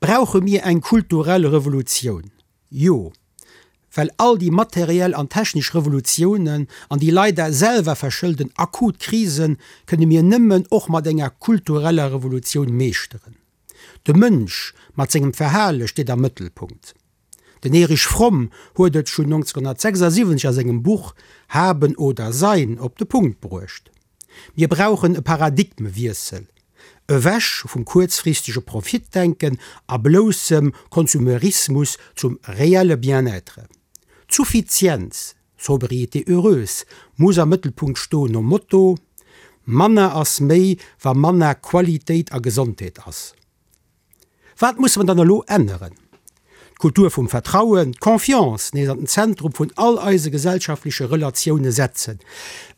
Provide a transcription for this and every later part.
Brauche mir eng kulturell Revolutioun? Jo, well all déi materiell an technesch Revolutiounen an déi leider selwer verschëlden akut Krisen kënne mir nëmmen och mat enger kultureller Revolutioun meeschteren. De Mënsch mat sengem Verhale steet am Mëttelpunkt. Den Erich Fromm huet et schonn 1976 a sengem Buch Haben oder Sein op de Punkt bruecht. Mir brauchen e Paradigmewiessel, ewech vum kuerzfristege Profitdenken a bloussem Konsumerismus zum reelle Bien-être. D'Suffizienz, Sobriété heureuse, muss am Mëttelpunkt stoen, nom Motto, Manner ass méi, wa manner Qualitéit a Gesondheet ass. Wat musse mer dann elo änneren? D'Kultur vum Vertrauen, d'Confiance nees an den Zentrum vun all eise gesellschaftleche Relatioune setzen,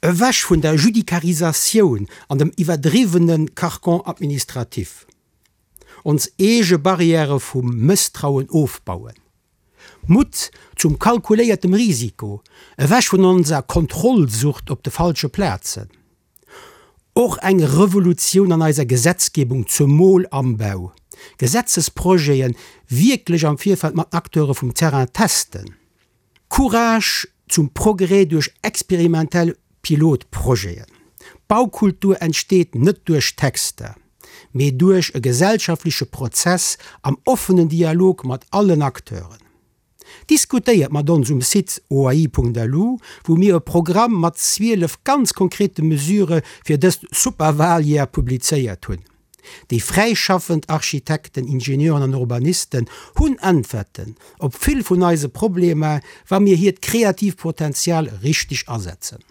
ewech vun der Judikarisatioun an dem iwwerdriwwene Carcan administratif. Ons eege Barrièrë vum Mësstrauen ofbauen. Mutt zum kalkuléiertem Risiko, ewech vun onser Kontrollsucht op de falsche Plazen. Och eng Revolutioun an eiser Gesetzgebung, zemol am Bau. Gesetzesprojete wierklech am Virfeld mat Acteure vum Terrain testen. Courage zum Progrès duerch experimentell Pilotprojeten. Baukultur entsteet net duerch Texter, mee duerch e gesellschaftleche Prozess am offenen Dialog mat allen Acteuren. Diskutéiert mat ons um Site oai.lu, wou mir e Programm mat 12 ganz konkrete Mesure fir dëst super Wahljahr publizéiert hunn. Déi fräischaffend Architekten, Ingenieuren an Urbanisten hunn Äntwerten op vill vun eise Problemer, wa mir hiert kreatiivt Potenzial richteg asetzen.